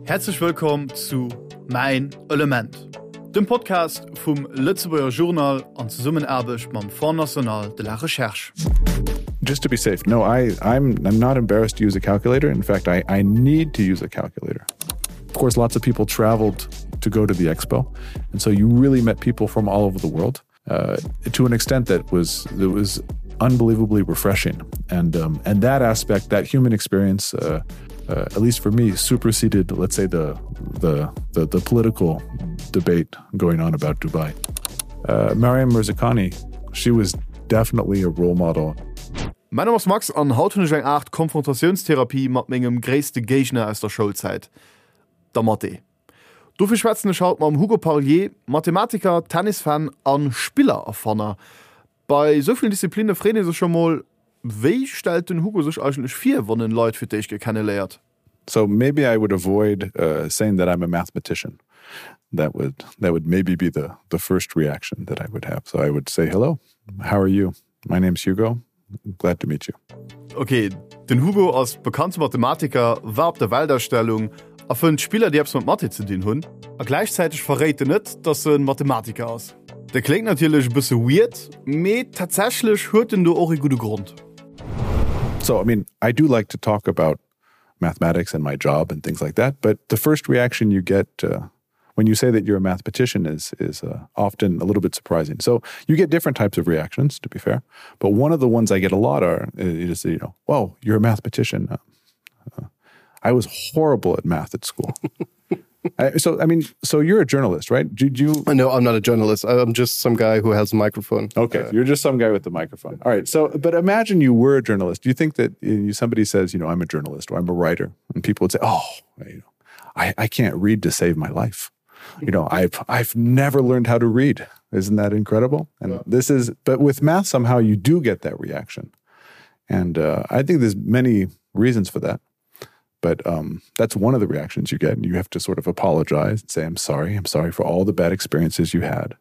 Häerzlech wëllkomm zu Mäin Element, dem Podcast vum Lëtzebuerger Journal an Zesummenaarbecht mam Fonds National de la Recherche. Just to be safe, no, I, I'm, I'm not embarrassed to use a calculator. In fact, I, I need to use a calculator. Of course, lots of people traveled to go to the expo. And so you really met people from all over the world uh, to an extent that was, that was unbelievably refreshing. And, um, and that aspect, that human experience, uh, uh, at least for me, superseded, let's say, the, the, the, the political debate going on about Dubai. Uh, Mariam Mirzakhani, she was definitely a role model. Mäin Numm ass Max an haut hunn ech eng Aart Konfrontatiounstherapie mat mengem gréisste Géigner aus der Schoulzäit, der Mathé. Dofir schwätzen ech haut mam Hugo Parlier, Mathematiker, Tennisfan a Spillererfanner. Bei esou villen Disziplinne freet ee sech scho mol, Wéi stellt den Hugo sech eigentlech vir, wann en Leit fir d'éischt Kéier kenneléiert? So maybe I would avoid uh, saying that I'm a mathematician. That would that would maybe be the the first reaction that I would have. So I would say hello. How are you? My name's Hugo. Glad to meet you. Okay, den Hugo ass bekannte Mathematiker, war op der Weltausstellung a fënnt Spiller, déi eppes mat Mathé ze dinn hunn. A gläichzäiteg verréit en net, dass en Mathematiker ass. Dat kléngt natierlech e bësse weird, mee tatsächlech huet en do och ee gudde Grond. So I mean, I do like to talk about mathematics and my job and things like that, but the first reaction you get uh, when you say that you're a mathematician is is uh, often a little bit surprising. So you get different types of reactions, to be fair. But one of the ones I get a lot are uh, you just say, you know, whoa, you're a mathematician. Uh, uh, I was horrible at math at school. I, so I mean, so you're a journalist, right? Did you? No, I'm not a journalist. I'm just some guy who has a microphone. Okay, uh, you're just some guy with the microphone. All right. So, but imagine you were a journalist. Do you think that you, somebody says, you know, I'm a journalist or I'm a writer, and people would say, oh, you know, I, I can't read to save my life. You know, I've I've never learned how to read. Isn't that incredible? And yeah. this is, but with math, somehow you do get that reaction. And uh, I think there's many reasons for that. But um, that's one of the reactions you get. And you have to sort of apologize and say, I'm sorry. I'm sorry for all the bad experiences you had.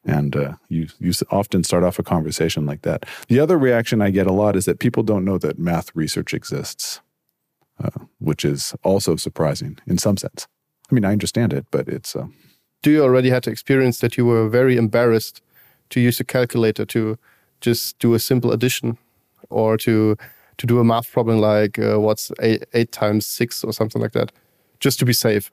And uh, you, you often start off a conversation like that. The other reaction I get a lot is that people don't know that math research exists, uh, which is also surprising in some sense. I mean, I understand it, but it's. Uh, Do you already had to experience that you were very embarrassed to use a calculator to just do a simple addition or to to do a math problem like uh, what's eight, eight times six or something like that, just to be safe?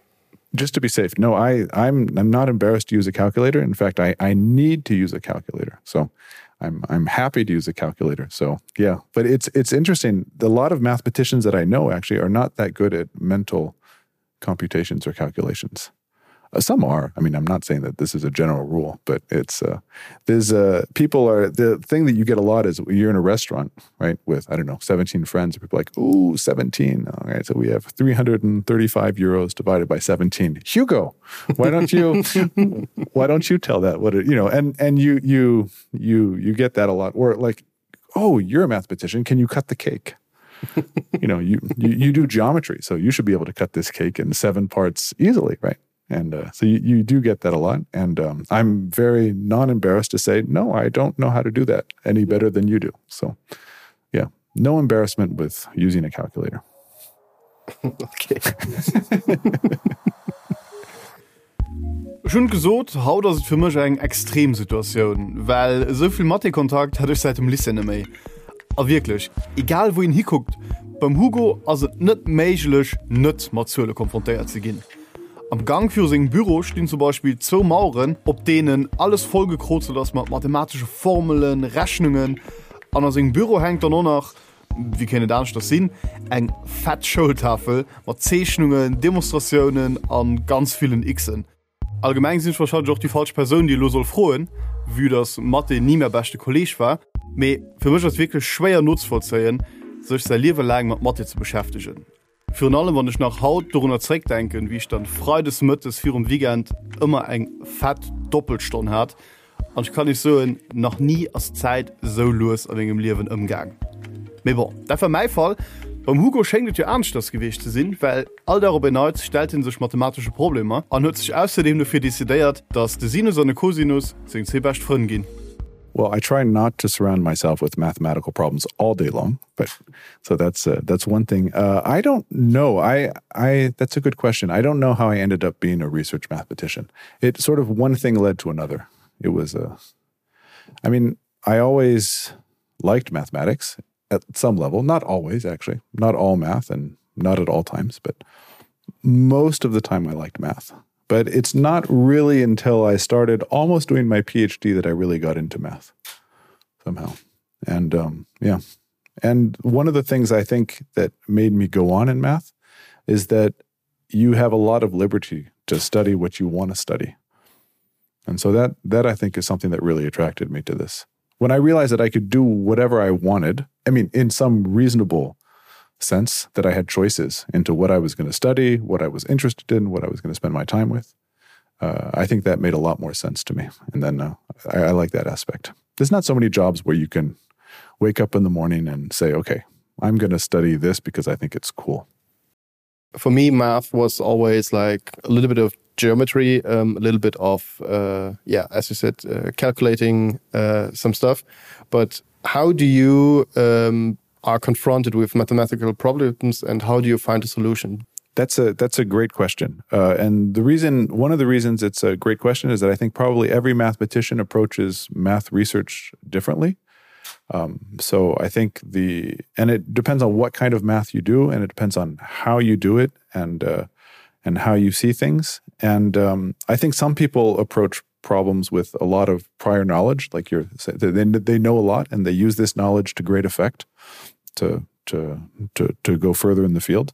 Just to be safe. No, I, I'm, I'm not embarrassed to use a calculator. In fact, I, I need to use a calculator. So I'm, I'm happy to use a calculator. So yeah, but it's, it's interesting. A lot of mathematicians that I know actually are not that good at mental computations or calculations. Uh, some are. I mean, I'm not saying that this is a general rule, but it's uh, there's uh, people are the thing that you get a lot is you're in a restaurant, right, with I don't know, 17 friends, and people are like, ooh, 17. All right, so we have 335 euros divided by 17. Hugo, why don't you why don't you tell that what it, you know, and and you you you you get that a lot. Or like, oh, you're a mathematician, can you cut the cake? you know, you, you you do geometry, so you should be able to cut this cake in seven parts easily, right? And uh, so you, you do get that a lot. And um, I'm very non-embarrassed to say, no, I don't know how to do that any better than you do. So yeah, no embarrassment with using a calculator. okay. Ech hunn gesot, haut ass et fir mech eng extrem Situatioun, well esou vill Mathé-Kontakt hat ech säit dem Lycée net méi. A wierklech, egal wou een hikuckt, beim Hugo ass et net méiglech, net mat Zuele konfrontéiert ze ginn. Am Gank viru sengem Büro stinn zum Beispill zwou Maueren, op deenen alles vollgekrozelt ass mat mathematesche Formelen, Rechnungen. An a sengem Büro hänkt dann och nach, wéi kéint et aneschters sinn, eng fett Schoultafel mat Zeechnungen, Demonstratiounen a ganz villen Xen. Allgemeng sinn ech warscheinlech och déi falsch Persoun, déi elo soll froen, vue dass Mathé ni mäi beschte Kolleeg war. Mee fir mech ass et wierklech schwéier nozevollzéien, sech säi Liewe laang mat Mathé ze beschäftegen. Virun allem wann ech nach haut dorunner zréckdenken, wéi ech dann freides mëttes virum Weekend ëmmer eng fett Doppelstonn hat. An ech kann iech soen, nach ni ass d'Zäit esou lues a mengem Liewen ëmgaang. Mee bon, dat war mäi Fall. Beim Hugo schéngt et jo aneschters gewiescht ze sinn, well all Dag op en Neits stellt hie sech mathematesche Problemer an huet sech ausserdeem dofir decidéiert, dass de Sinus an de Kosinus seng zwee bescht Frënn ginn. Well, I try not to surround myself with mathematical problems all day long, but so that's uh, that's one thing. Uh, I don't know. I I that's a good question. I don't know how I ended up being a research mathematician. It sort of one thing led to another. It was a I mean, I always liked mathematics at some level, not always actually, not all math and not at all times, but most of the time I liked math. But it's not really until I started almost doing my PhD that I really got into math somehow. And um, yeah. And one of the things I think that made me go on in math is that you have a lot of liberty to study what you want to study. And so that that I think is something that really attracted me to this. When I realized that I could do whatever I wanted, I mean, in some reasonable sense that I had choices into what I was going to study, what I was interested in, what I was going to spend my time with. Uh, I think that made a lot more sense to me. And then uh, I, I like that aspect. There's not so many jobs where you can wake up in the morning and say, okay, I'm going to study this because I think it's cool. For me, math was always like a little bit of geometry, um, a little bit of, uh, yeah, as you said, uh, calculating uh, some stuff. But how do you um, are confronted with mathematical problems and how do you find a solution? That's a that's a great question. Uh, and the reason one of the reasons it's a great question is that I think probably every mathematician approaches math research differently. Um, so I think the and it depends on what kind of math you do and it depends on how you do it and uh, and how you see things. And um, I think some people approach problems with a lot of prior knowledge, like you're they, they know a lot and they use this knowledge to great effect to to to to go further in the field.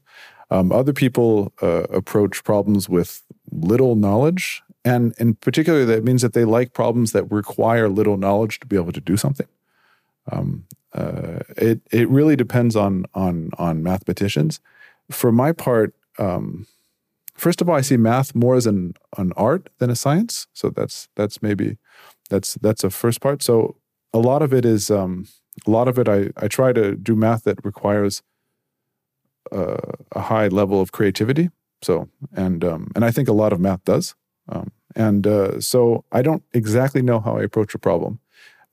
Um, other people uh, approach problems with little knowledge, and in particular, that means that they like problems that require little knowledge to be able to do something. Um, uh, it it really depends on on on mathematicians. For my part, um, first of all, I see math more as an an art than a science. So that's that's maybe that's that's a first part. So a lot of it is um, a lot of it I, I try to do math that requires uh, a high level of creativity. So and um, and I think a lot of math does. Um, and uh, so I don't exactly know how I approach a problem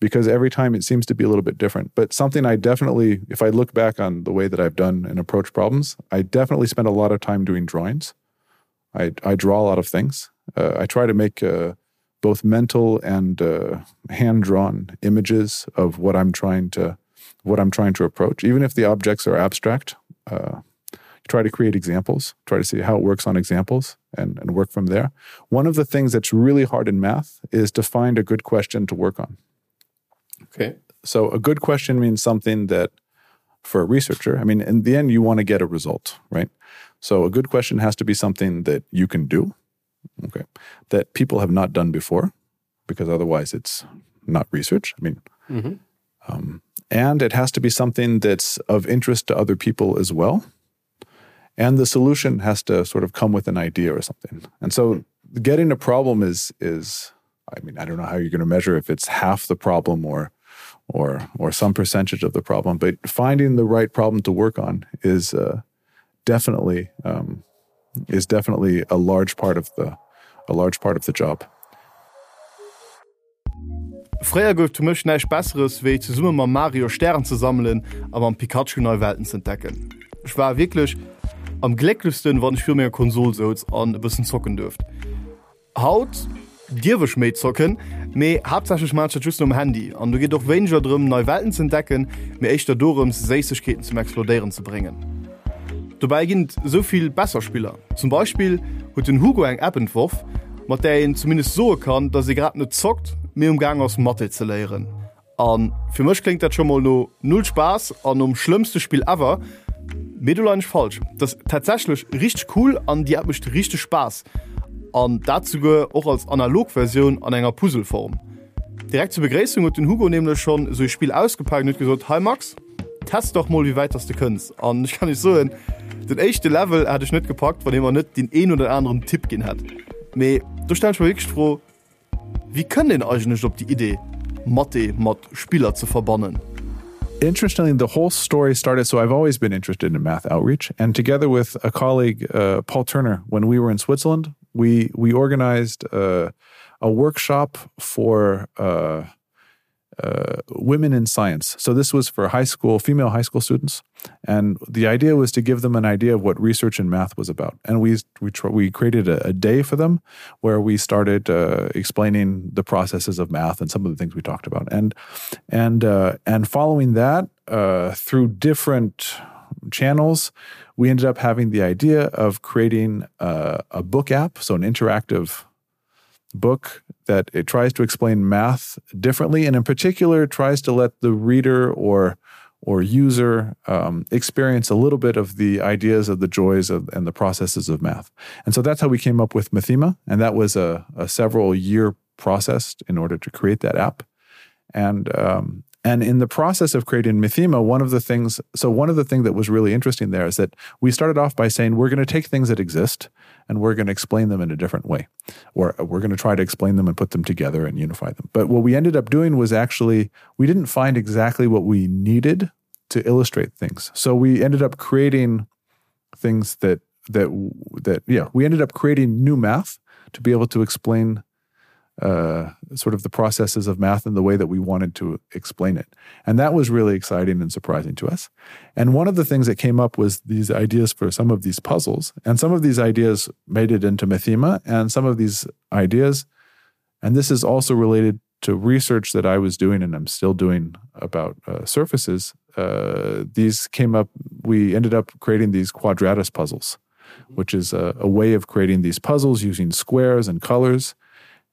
because every time it seems to be a little bit different. But something I definitely, if I look back on the way that I've done and approach problems, I definitely spend a lot of time doing drawings. I, I draw a lot of things. Uh, I try to make uh, both mental and uh, hand-drawn images of what I'm trying to what I'm trying to approach, even if the objects are abstract. Uh, try to create examples, try to see how it works on examples and, and work from there. One of the things that's really hard in math is to find a good question to work on. Okay. So a good question means something that for a researcher, I mean, in the end, you want to get a result, right? So a good question has to be something that you can do, okay, that people have not done before, because otherwise it's not research. I mean, mm -hmm. um, and it has to be something that's of interest to other people as well. And the solution has to sort of come with an idea or something. And so getting a problem is is I mean, I don't know how you're going to measure if it's half the problem or or or some percentage of the problem, but finding the right problem to work on is uh, definitely um, is definitely a large part of the a large part of the job. Fréier gouf et fir mech näischt Besseres, wéi zesumme mam Mario Stären ze sammelen a mam Pikachu nei Welten z'entdecken. Ech war wierklech am glécklechsten, wann ech viru menger Konsol souz an e bëssen zocken duerft. Haut dierf ech méi zocken, mee haaptsächlech maan ech dat just nom Handy an do geet och wéineger drëm nei Welten ze entdecken, mee éischter dorëms Séissegkeeten zum explodéieren ze bréngen. Dobäi ginn et esou vill besser Spiller. Zum Beispill huet den Hugo eng App entworf, mat där een zumindest soe kann, dass ee grad net zockt, mee um Gaang ass Mathé ze léieren. A fir mech kléngt dat scho mol no null Spaass an nom schlëmmste Spill ever. Mee do leien ech falsch. Dat ass tatsächlech richteg cool an déi App mécht richteg Spaass. An dat souguer och als analog Versioun an enger Puzzle-Form. Direkt zur Begréissung huet den Hugo nämlech schonn esou ee Spill ausgepaakt an huet gesot, Hei Max, test dach mol wéi wäit dass de kënns. An ech kann iech soen, den éischte Level hätt ech net gepackt, wann hie mer net deen een oder aneren Tipp ginn hätt. Mee do stellen ech mer wierklech d'Fro, Wéi kënnt een eigentlech op déi Idee, Mathé mat Spiller ze verbannen? Interestingly, the whole story started so I've always been interested in math outreach and together with a colleague uh, Paul Turner when we were in Switzerland we we organized uh, a workshop for uh, uh, women in science. So this was for high school, female high school students. And the idea was to give them an idea of what research in math was about. And we, we, we created a, a day for them where we started uh, explaining the processes of math and some of the things we talked about. And, and, uh, and following that uh, through different channels, we ended up having the idea of creating a, a book app, so an interactive book that it tries to explain math differently and in particular tries to let the reader or or user um, experience a little bit of the ideas of the joys of, and the processes of math. And so that's how we came up with Mathema and that was a, a several year process in order to create that app. And um, and in the process of creating Mathema, one of the things so one of the things that was really interesting there is that we started off by saying we're going to take things that exist and we're going to explain them in a different way or we're going to try to explain them and put them together and unify them. But what we ended up doing was actually we didn't find exactly what we needed to illustrate things. So we ended up creating things that that that yeah, we ended up creating new math to be able to explain uh, sort of the processes of math in the way that we wanted to explain it. And that was really exciting and surprising to us. And one of the things that came up was these ideas for some of these puzzles. And some of these ideas made it into Mathema, and some of these ideas, and this is also related to research that I was doing and I'm still doing about uh, surfaces. Uh, these came up, we ended up creating these quadratus puzzles, which is a, a way of creating these puzzles using squares and colors.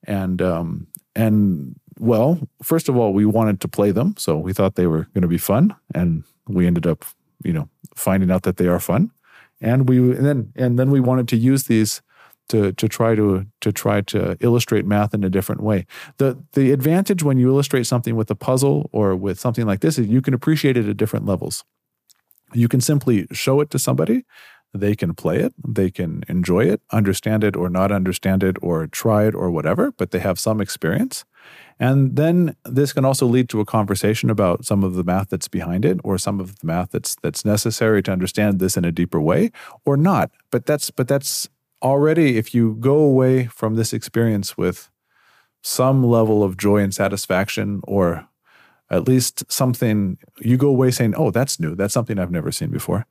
And um, and well, first of all, we wanted to play them, so we thought they were going to be fun, and we ended up, you know, finding out that they are fun. And we and then and then we wanted to use these to to try to to try to illustrate math in a different way. The the advantage when you illustrate something with a puzzle or with something like this is you can appreciate it at different levels. You can simply show it to somebody they can play it, they can enjoy it, understand it or not understand it or try it or whatever, but they have some experience. And then this can also lead to a conversation about some of the math that's behind it or some of the math that's that's necessary to understand this in a deeper way or not. But that's but that's already if you go away from this experience with some level of joy and satisfaction or at least something you go away saying, "Oh, that's new. That's something I've never seen before."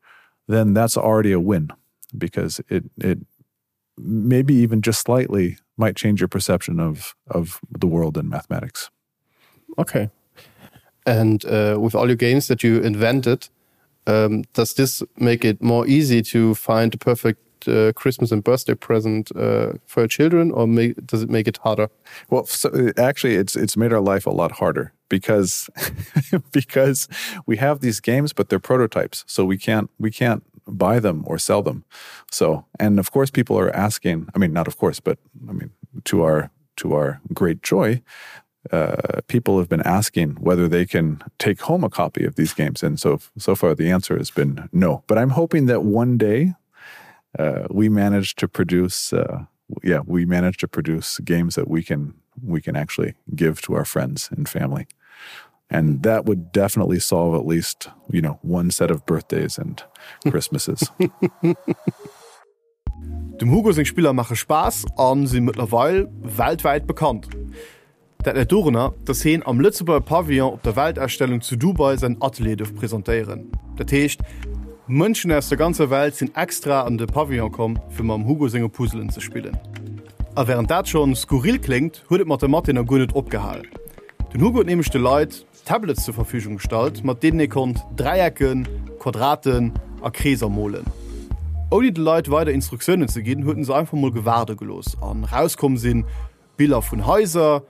then that's already a win because it it maybe even just slightly might change your perception of of the world in mathematics. Okay. And uh, with all your games that you invented, um, does this make it more easy to find the perfect uh, Christmas and birthday present uh, for your children or make, does it make it harder? Well, so uh, actually it's it's made our life a lot harder because because we have these games but they're prototypes so we can't we can't buy them or sell them so and of course people are asking I mean not of course but I mean to our to our great joy uh, people have been asking whether they can take home a copy of these games and so so far the answer has been no but I'm hoping that one day uh, we manage to produce uh, yeah we manage to produce games that we can we can actually give to our friends and family and that would definitely solve at least you know one set of birthdays and Christmases. Dem Hugo seng Spiller maache Spaass a si mëttlerweil weltwäit bekannt. Dat läit dorunner, dass heen am Lëtzebuerger Pavillon op der Weltausstellung zu Dubai säin Atelier duerf presentéieren. Dat heescht, Mënschen aus der ganzer Welt sinn extra an de Pavillon komm, fir mam Hugo senge Puzzelen ze spillen. A wärend dat schonn skurril kléngt, huet et mat der Mathé nach guer net opgehal. Den Hugo huet nämlech de Leit Tablets zur Verfügung gestallt, mat deenen ee konnt Dräiecken, Quadraten a Kreeser molen. Ouni de Leit weider Instruktiounen ze ginn, huet en se einfach mol gewaarde gelooss an rauskomm sinn Biller vun Haiser,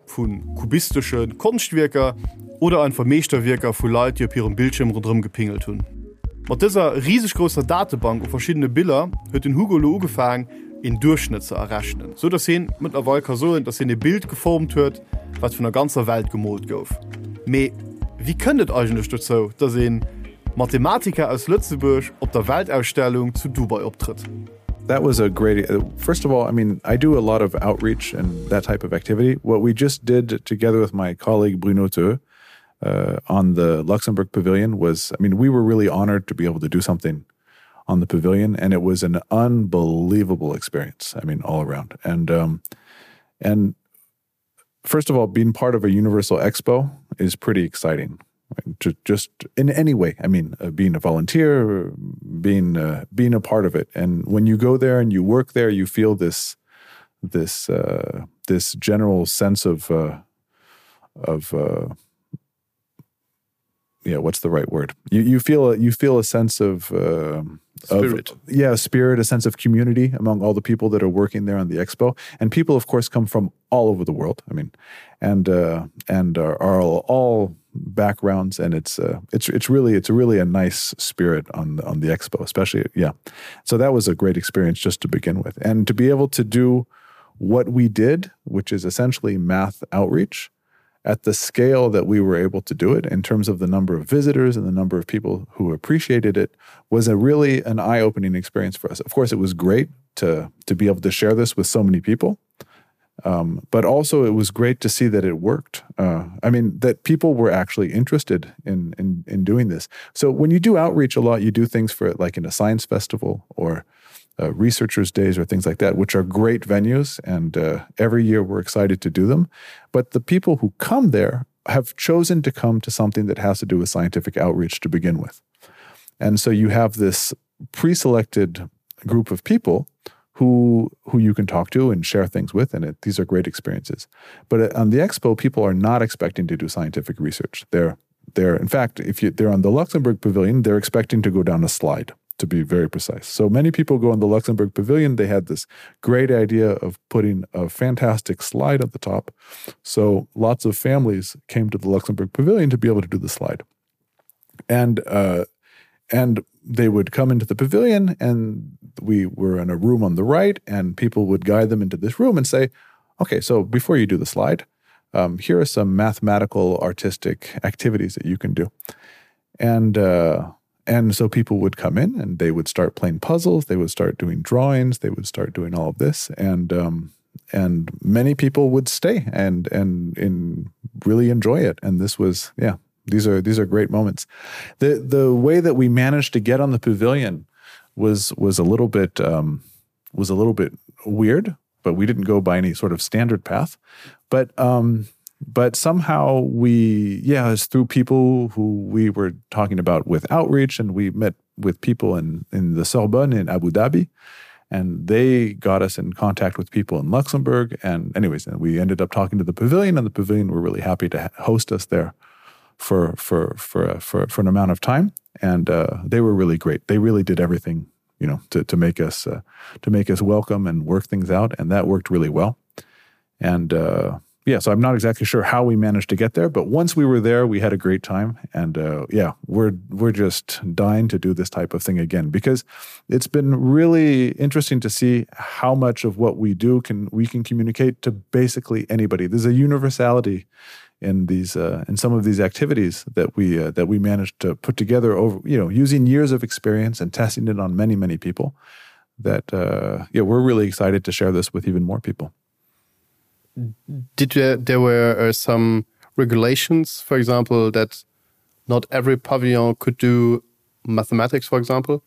vu kubistesche Konschtwierker oder einfach Meeschterwierker vu Leit, déi op hirem Bildschierm ronderëm gepingelt hunn. Mat dëser riseg grousser Datebank u verschiddene Biller huet den Hugo elo ugefaang, een Duerchschnëtt ze errechnen, sou datt hien mëttlerweil ka soen, datt hien e Bild geformt huet, wat vun der ganzer Welt gemoolt gouf. Mee wéi kënnt et eigentlech dozou, datt ee Mathematiker aus Lëtzebuerg op der Weltausstellung zu Dubai optrëtt? That was a great uh, first of all, I mean, I do a lot of outreach and that type of activity. What we just did together with my colleague Bruno Teu uh, on the Luxembourg Pavilion was I mean, we were really honored to be able to do something on the pavilion and it was an unbelievable experience. I mean, all around. And um, and First of all, being part of a Universal Expo is pretty exciting. Right? To just in any way, I mean, uh, being a volunteer, being uh, being a part of it, and when you go there and you work there, you feel this this uh, this general sense of uh, of uh, yeah, what's the right word? You you feel a, you feel a sense of uh, spirit, of, yeah, spirit, a sense of community among all the people that are working there on the expo, and people, of course, come from all over the world. I mean, and uh, and are, are all, all backgrounds, and it's uh, it's it's really it's really a nice spirit on the, on the expo, especially yeah. So that was a great experience just to begin with, and to be able to do what we did, which is essentially math outreach at the scale that we were able to do it in terms of the number of visitors and the number of people who appreciated it was a really an eye-opening experience for us. Of course, it was great to to be able to share this with so many people. Um, but also it was great to see that it worked. Uh, I mean, that people were actually interested in, in, in doing this. So when you do outreach a lot, you do things for it like in a science festival or uh, researchers days or things like that, which are great venues. And uh, every year we're excited to do them. But the people who come there have chosen to come to something that has to do with scientific outreach to begin with. And so you have this pre-selected group of people who who you can talk to and share things with and it, these are great experiences. But uh, on the expo people are not expecting to do scientific research. They're they're in fact if you they're on the Luxembourg pavilion they're expecting to go down a slide to be very precise. So many people go on the Luxembourg Pavilion. They had this great idea of putting a fantastic slide at the top. So lots of families came to the Luxembourg Pavilion to be able to do the slide. And uh, and they would come into the pavilion and we were in a room on the right and people would guide them into this room and say, okay, so before you do the slide, um, here are some mathematical artistic activities that you can do. And uh, and so people would come in and they would start playing puzzles, they would start doing drawings, they would start doing all of this. And um, and many people would stay and and and really enjoy it. And this was, yeah, these are these are great moments. The the way that we managed to get on the pavilion was was a little bit um, was a little bit weird, but we didn't go by any sort of standard path. But um, but somehow we yeah it's through people who we were talking about with outreach and we met with people in in the Sorbonne in Abu Dhabi and they got us in contact with people in Luxembourg and anyways and we ended up talking to the pavilion and the pavilion were really happy to host us there for for for for, for an amount of time and uh, they were really great they really did everything you know to, to make us uh, to make us welcome and work things out and that worked really well and uh, yeah, so I'm not exactly sure how we managed to get there, but once we were there, we had a great time. And uh, yeah, we're we're just dying to do this type of thing again because it's been really interesting to see how much of what we do can we can communicate to basically anybody. There's a universality in these uh, in some of these activities that we uh, that we managed to put together over you know using years of experience and testing it on many many people that uh, yeah we're really excited to share this with even more people did there, there were uh, some regulations, for example, that not every pavilion could do mathematics, for example?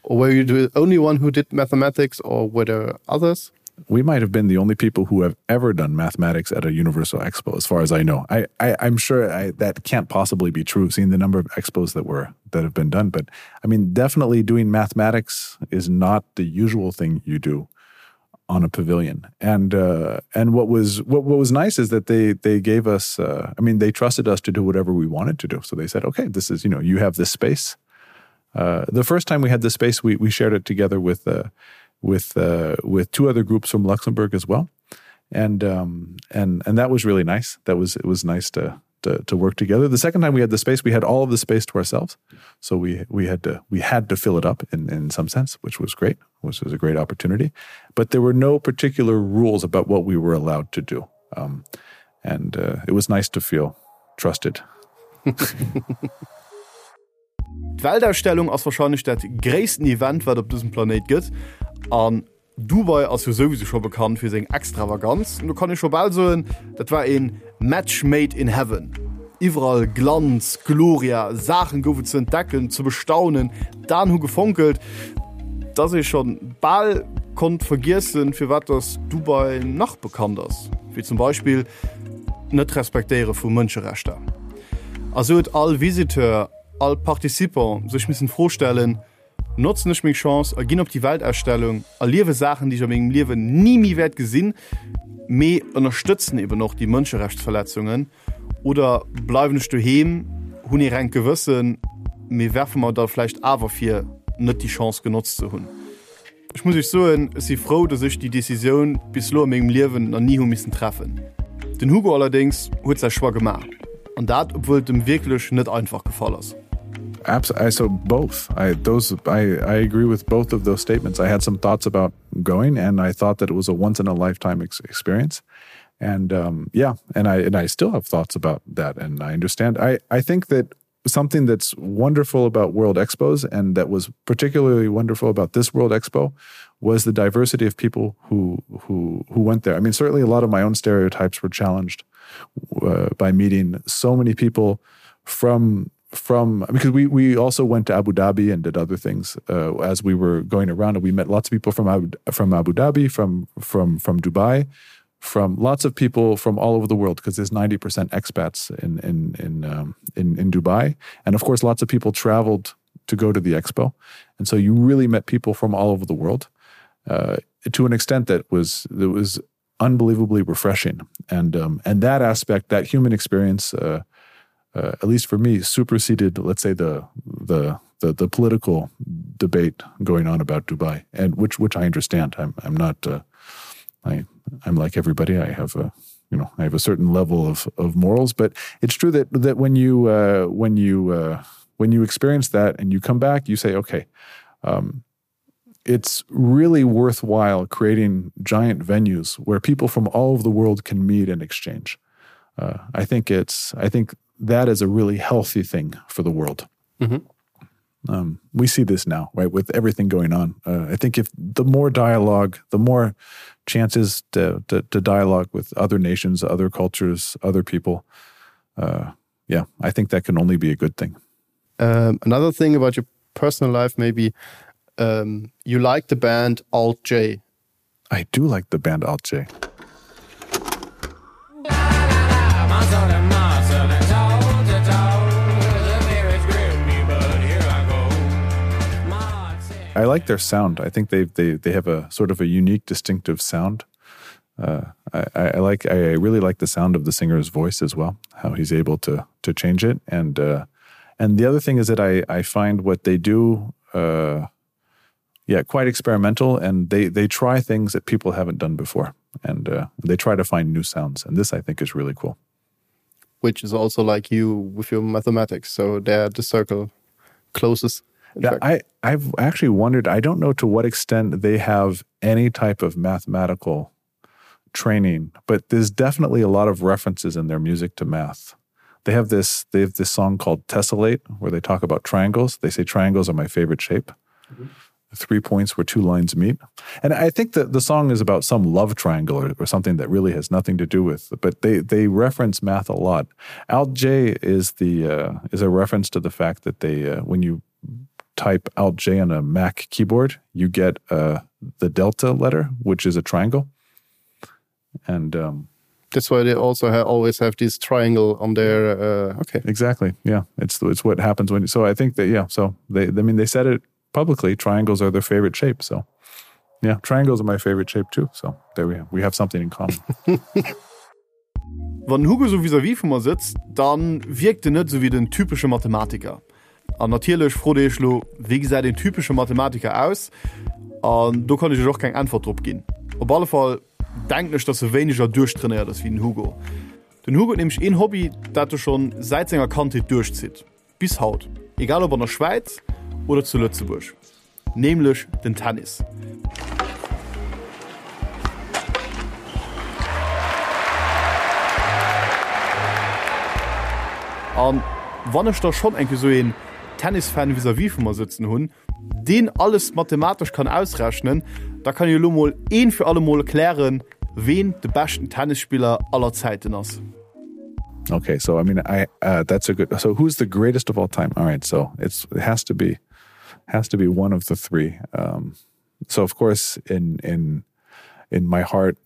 Or were you the only one who did mathematics or were there others? We might have been the only people who have ever done mathematics at a Universal Expo, as far as I know. I, I, I'm sure I, that can't possibly be true, seeing the number of expos that were that have been done. But I mean, definitely doing mathematics is not the usual thing you do on a pavilion. And uh, and what was what, what was nice is that they they gave us uh, I mean they trusted us to do whatever we wanted to do. So they said, okay, this is you know you have this space. Uh, the first time we had the space, we we shared it together with uh, with uh, with two other groups from Luxembourg as well, and um, and and that was really nice. That was it was nice to to, to work together. The second time we had the space, we had all of the space to ourselves. So we we had to we had to fill it up in, in some sense, which was great, which was a great opportunity. But there were no particular rules about what we were allowed to do. Um, and uh, it was nice to feel trusted. D'Weltausstellung ass warscheinlech dat gréissten Event, wat op dësem Planéit gëtt. An Dubai ass jo souwisou scho bekannt fir seng Extravaganz, an do kann ee scho bal soen, dat war een Match made in heaven. Iwwerall Glanz, Gloria, Saachen gouf et ze entdecken, ze bestaunen, d'Aen hu gefonkelt, dass ee schonn bal konnt vergiessen, firwat dass Dubai nach bekannt ass, wéi zum Beispill. d'Net-Respektéiere vu Mënscherechter. A sou huet all Visiteur, all Participant sech missen d'Fro stellen, Notzen ech meng Chance a ginn op déi Weltausstellung, erliewe Saachen, déi ech a mengem Liewen ni méi wäert gesinn, mee ënnerstëtzen eben och déi Mënscherechtsverletzungen, oder bleiwen ech doheem, hunn ee rengt Gewëssen, mee werfe mer da vläicht awer vir, net déi Chance genotzt ze hunn? Ech muss iech soen, ech si frou, dass ech déi Decisioun bis elo a mengem Liewen nach ni hu missen treffen. Den Hugo allerdéngs huet säi Choix gemaach, an dat obwuel et em wierklech net einfach gefall ass. Abs I so both I those I I agree with both of those statements. I had some thoughts about going and I thought that it was a once in a lifetime ex experience and um yeah and I and I still have thoughts about that and I understand I I think that something that's wonderful about World Expos and that was particularly wonderful about this World Expo was the diversity of people who who who went there. I mean certainly a lot of my own stereotypes were challenged uh, by meeting so many people from from because we we also went to Abu Dhabi and did other things uh, as we were going around and we met lots of people from Abu, from Abu Dhabi from from from Dubai from lots of people from all over the world because there's 90% expats in in in, um, in in Dubai and of course lots of people traveled to go to the expo and so you really met people from all over the world uh, to an extent that was that was unbelievably refreshing and um, and that aspect that human experience uh, uh, at least for me superseded let's say the the the, the political debate going on about Dubai and which which I understand I'm I'm not uh, I I'm like everybody I have a you know I have a certain level of of morals but it's true that that when you uh, when you uh, when you experience that and you come back you say okay um, it's really worthwhile creating giant venues where people from all over the world can meet and exchange uh, I think it's I think that is a really healthy thing for the world mm -hmm. um, we see this now right with everything going on uh, I think if the more dialogue the more chances to, to, to dialogue with other nations other cultures other people uh, yeah I think that can only be a good thing um, another thing about your personal life maybe um, you like the band alt J I do like the band alt J. I like their sound. I think they they they have a sort of a unique distinctive sound. Uh, I, I like I really like the sound of the singer's voice as well, how he's able to to change it. And uh, and the other thing is that I, I find what they do uh, yeah, quite experimental and they they try things that people haven't done before and uh, they try to find new sounds and this I think is really cool. Which is also like you with your mathematics, so there the circle closes. Yeah, I, I've actually wondered, I don't know to what extent they have any type of mathematical training, but there's definitely a lot of references in their music to math. They have this they have this song called Tessellate where they talk about triangles. They say triangles are my favorite shape. Mm -hmm. 3 points where two lines meet. And I think that the song is about some love triangle or, or something that really has nothing to do with, but they they reference math a lot. Alt J is the uh, is a reference to the fact that they uh, when you type Alt J on a Mac keyboard, you get uh, the delta letter, which is a triangle. And um, that's why they also ha always have this triangle on their uh, okay. Exactly. Yeah, it's it's what happens when so I think that yeah, so they I mean they said it publicly triangles are their favorite shape so yeah triangles are my favorite shape too so there we have we have something in common Wann Hugo so vis-à-vis vu mer sëtzt, dann wierkt en net sou wéi den typesche Mathematiker. An natierlech frot Dir Iech lo, wéi gesäit een typesche Mathematiker aus? An do kann ech Iech och keng Äntwert drop ginn. Op alle Fall denken ech, dass e wéineger duerchtrainéiert ass wéi den Hugo. Den Hugo huet nämlech een Hobby, dat e schonn säit senger Kandheet duerchzitt. Bis haut, egal ob an der Schwäiz oder zu Lëtzebuerg, nämlech den Tennis. An wann ech da schonn eng Kéier sou een Tennisfan vis-à-vis vu mer sëtzen hunn, deen alles mathematesch kann ausrechnen, da kann ech elo mol een fir alle mol klären, ween de beschten Tennisspiller aller Zäiten ass. Okay, so I mean I uh, that's a good so who's the greatest of all time? All right, so it's it has to be has to be one of the three. Um, so of course in in in my heart,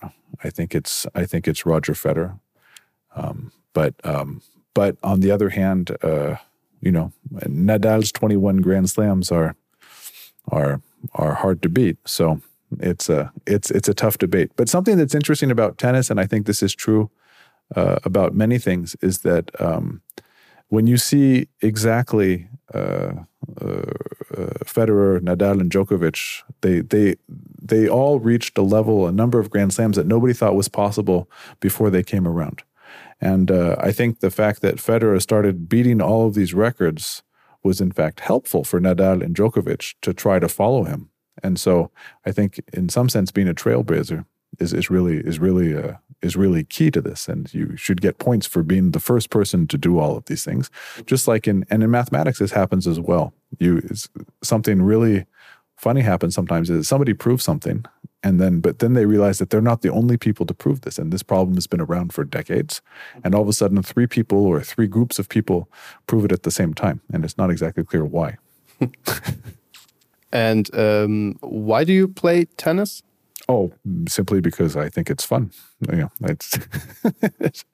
I think it's I think it's Roger Federer. Um, but um, but on the other hand, uh, you know, Nadal's 21 Grand Slams are are are hard to beat. So it's a it's it's a tough debate. But something that's interesting about tennis, and I think this is true uh, about many things, is that um, when you see exactly uh, uh, uh, Federer, Nadal, and Djokovic, they they they all reached a level, a number of Grand Slams that nobody thought was possible before they came around. And uh, I think the fact that Federer started beating all of these records was in fact helpful for Nadal and Djokovic to try to follow him. And so I think in some sense being a trailblazer is, is really is really uh, is really key to this and you should get points for being the first person to do all of these things just like in and in mathematics this happens as well you is something really funny happens sometimes is somebody proves something and then but then they realize that they're not the only people to prove this and this problem has been around for decades and all of a sudden three people or three groups of people prove it at the same time and it's not exactly clear why and um, why do you play tennis oh simply because I think it's fun you know, it's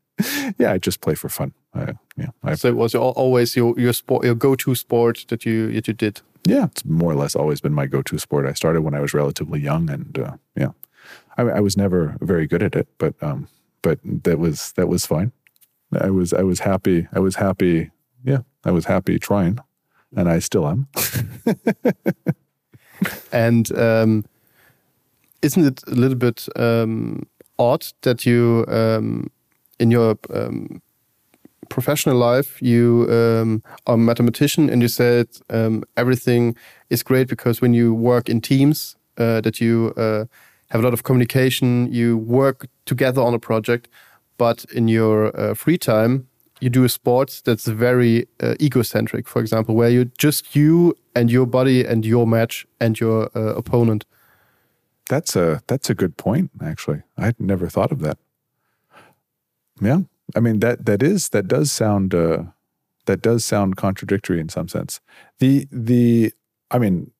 yeah I just play for fun I, yeah I, so it was always your your sport your go-to sport that you that you did yeah it's more or less always been my go-to sport I started when I was relatively young and uh, yeah I, I was never very good at it but um but that was that was fine I was I was happy I was happy yeah I was happy trying and I still am and um isn't it a little bit um odd that you um in your um professional life you um, are a mathematician and you said um, everything is great because when you work in teams uh, that you uh, have a lot of communication you work together on a project but in your uh, free time you do a sport that's very uh, egocentric for example where you just you and your body and your match and your uh, opponent that's a that's a good point actually I'd never thought of that yeah I mean that that is that does sound uh, that does sound contradictory in some sense. The the I mean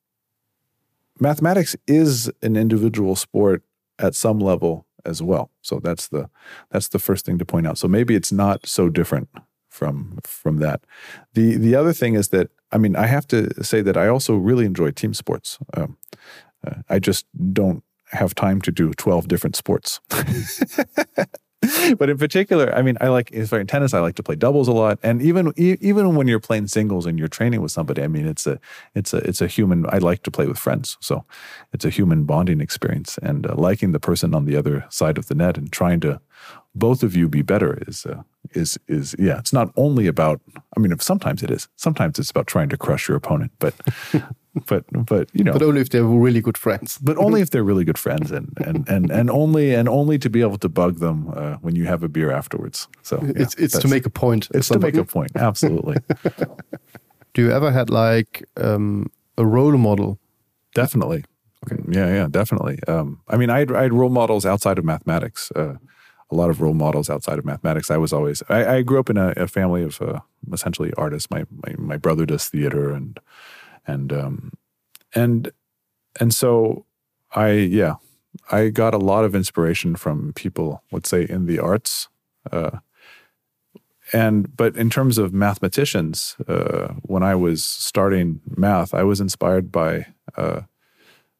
mathematics is an individual sport at some level as well. So that's the that's the first thing to point out. So maybe it's not so different from from that. The the other thing is that I mean I have to say that I also really enjoy team sports. Um, uh, I just don't have time to do 12 different sports. but in particular, I mean, I like if in tennis, I like to play doubles a lot, and even even when you're playing singles and you're training with somebody, I mean, it's a it's a it's a human. I like to play with friends, so it's a human bonding experience, and uh, liking the person on the other side of the net and trying to both of you be better is uh, is is yeah. It's not only about. I mean, if sometimes it is. Sometimes it's about trying to crush your opponent, but but but you know but only if they're really good friends but only if they're really good friends and and and and only and only to be able to bug them uh, when you have a beer afterwards so yeah, it's it's to make a point it's to make a point absolutely do you ever had like um a role model definitely okay yeah yeah definitely um I mean I had, I had role models outside of mathematics uh a lot of role models outside of mathematics I was always I, I grew up in a, a family of uh, essentially artists my, my my brother does theater and and um, and and so I yeah I got a lot of inspiration from people let's say in the arts uh, and but in terms of mathematicians uh, when I was starting math I was inspired by uh,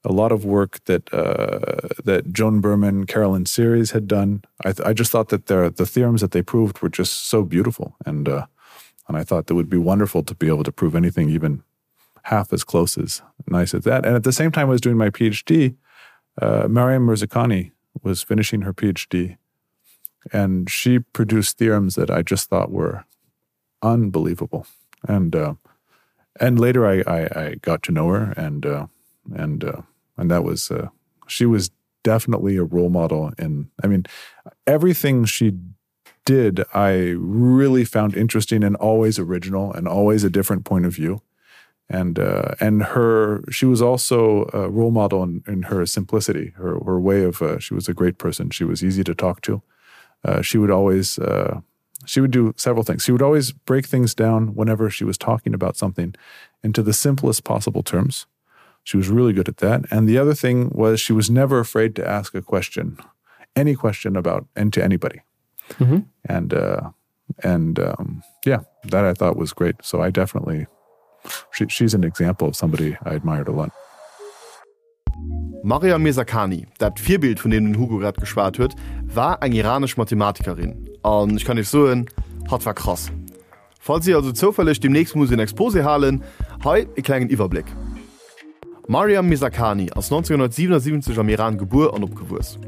a lot of work that uh, that Joan Berman Carolyn series had done I, th I just thought that their the theorems that they proved were just so beautiful and uh, and I thought that would be wonderful to be able to prove anything even half as close as nice as that. And at the same time I was doing my PhD, uh, Mariam Mirzakhani was finishing her PhD and she produced theorems that I just thought were unbelievable. And uh, and later I, I, I got to know her and uh, and uh, and that was uh, she was definitely a role model in I mean everything she did I really found interesting and always original and always a different point of view and uh, and her she was also a role model in, in her simplicity her, her way of uh, she was a great person she was easy to talk to uh, she would always uh, she would do several things she would always break things down whenever she was talking about something into the simplest possible terms she was really good at that and the other thing was she was never afraid to ask a question any question about and to anybody. Mm -hmm. And uh, and um, yeah, that I thought was great. So I definitely she, she's an example of somebody I admired a lot. Maryam Mirzakhani, dat Virbild vun deem den Hugo grad geschwat huet, war eng iranesch Mathematikerin. An ech kann iech soen, hatt war krass. Falls dir also zoufälleg demnächst muss en Exposé halen, hei e klengen Iwwerbléck. D'Maryam Mirzakhani ass 1977 am Iran gebuer an opgewuess.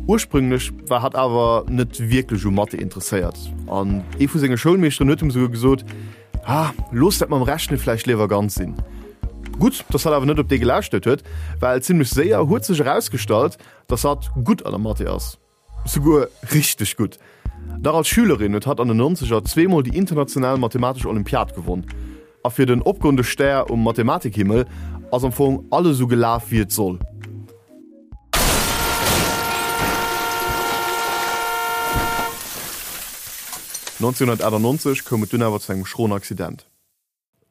Ursprünglech war hatt awer net wierklech u Mathe interesséiert an ee vu senge Schoulmeeschteren huet him souguer gesot, Ah, looss dat mam Rechne vläicht léiwer ganz sinn. Gutt, dass hatt awer net op dee gelauschtert huet, well zimmlech séier huet sech erausgestallt, dass hatt gutt an der Mathe ass. Souguer richteg gutt. Nach als Schülerin huet hatt an den Nonzeger zweemol déi international mathematesch Olympiad gewonn. A fir den opgoende Stär um Mathematikhimmel ass am Fong alles esou gelaf wéi et soll. 1998 koum et dunn awer zu engem schroen Accident.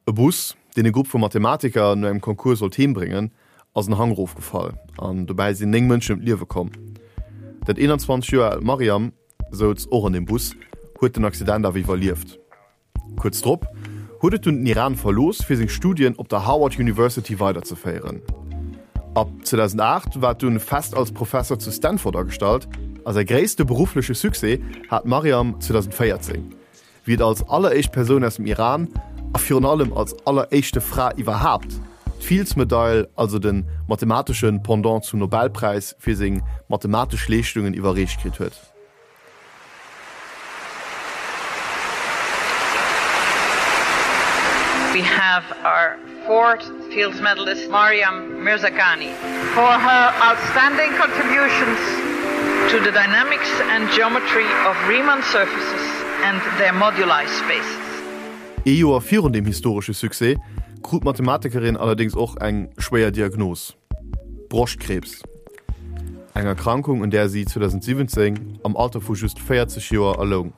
E Bus, deen e Grupp vu Mathematiker no engem Concours sollt heem bréngen, ass en Hang erofgefall an dobäi sinn 9 Mënschen ëm d'Liewe komm. Dat 21 Joer aalt Maryam souz och an deem Bus, huet den Accident awer iwwerlieft. Kuerz drop huet et dunn den Iran verlooss, fir seng Studien op der Howard University weiderzeféieren. Ab 2008 war et dunn fest als Professer zu Stanford agestallt a säi gréisste beruffleche Succès hat d'Maryam 2014, wéi et als alleréischt Persoun aus dem Iran a virun allem als alleréischte Fra iwwerhaapt d'Fields-Medail, also de mathematesche Pendant zum Nobelpräis, fir seng mathematesch Leeschtungen iwwerreecht kritt huet. We have our fourth Fields Medalist Maryam Mirzakhani for her outstanding contributions to the dynamics and geometry of Riemann surfaces and their moduli spaces. Ee Joer virun deem historesche Succès krut d'Mathematikerin allerdéngs och eng schwéier Diagnos, Broschtkriibs, eng Erkrankung un där si 2017 am Alter vu just 40 Joer erloung.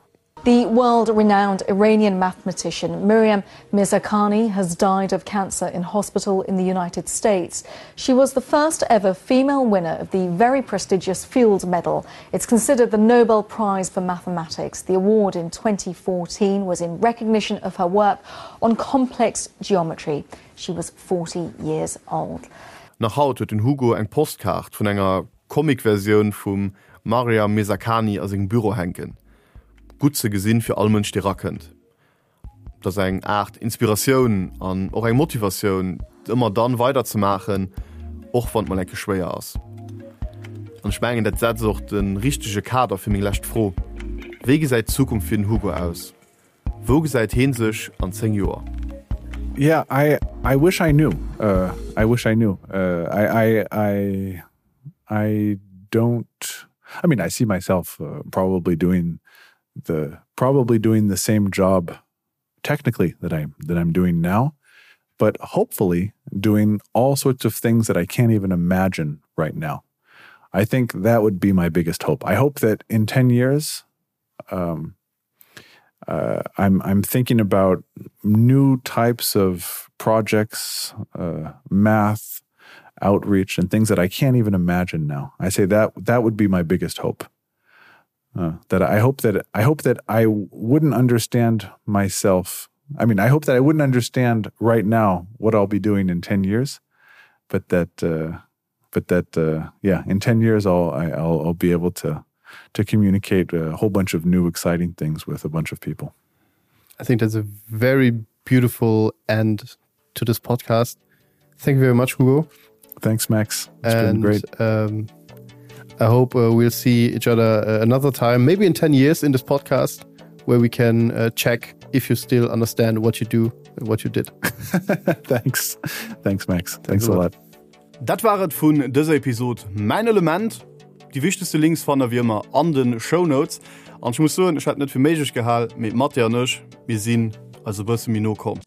The world-renowned Iranian mathematician Miriam Mirzakhani has died of cancer in hospital in the United States. She was the first ever female winner of the very prestigious Fields Medal. It's considered the Nobel Prize for Mathematics. The award in 2014 was in recognition of her work on complex geometry. She was 40 years old. Nach haut huet den Hugo eng Postkaart vun enger Comic-Versioun vum Maryam Mirzakhani a sengem Büro hänken. Gutt ze gesinn fir all Mënsch dee rakënnt. Et ass eng Aart Inspiratioun an och eng Motivatioun ëmmer dann weider ze maachen, och wann et mol enke schwéier ass. An ech mengen dat setzt och de richtege Kader fir meng lescht Fro, Wéi gesäit d'Zukunft fir den Hugo aus? Wou gesäit heen sech an 10 Joer? Yeah, I I wish I knew. Uh, I wish I knew. Uh, I, I I I don't I mean I see myself uh, probably doing the probably doing the same job technically that I'm that I'm doing now, but hopefully doing all sorts of things that I can't even imagine right now. I think that would be my biggest hope. I hope that in 10 years um, uh, I'm I'm thinking about new types of projects, uh, math, outreach, and things that I can't even imagine now. I say that that would be my biggest hope. Uh, that I hope that I hope that I wouldn't understand myself. I mean, I hope that I wouldn't understand right now what I'll be doing in 10 years, but that uh, but that uh, yeah, in 10 years I'll I, I'll, I'll be able to to communicate a whole bunch of new exciting things with a bunch of people. I think that's a very beautiful end to this podcast. Thank you very much, Hugo. Thanks, Max. It's and, been great. Um, I hope uh, we'll see each other uh, another time, maybe in 10 years in this podcast, where we can uh, check if you still understand what you do and what you did. Thanks. Thanks, Max. Thanks, Thanks a lot. lot. Dat war et vun dëser Episod Mäin Element. Déi wichtegste Links fannt der wéi ëmmer an de Shownotes. An ech muss soen, ech hätt net fir méiglech gehal, mee d'Mathé an ech, mir sinn eis e bësse méi no komm.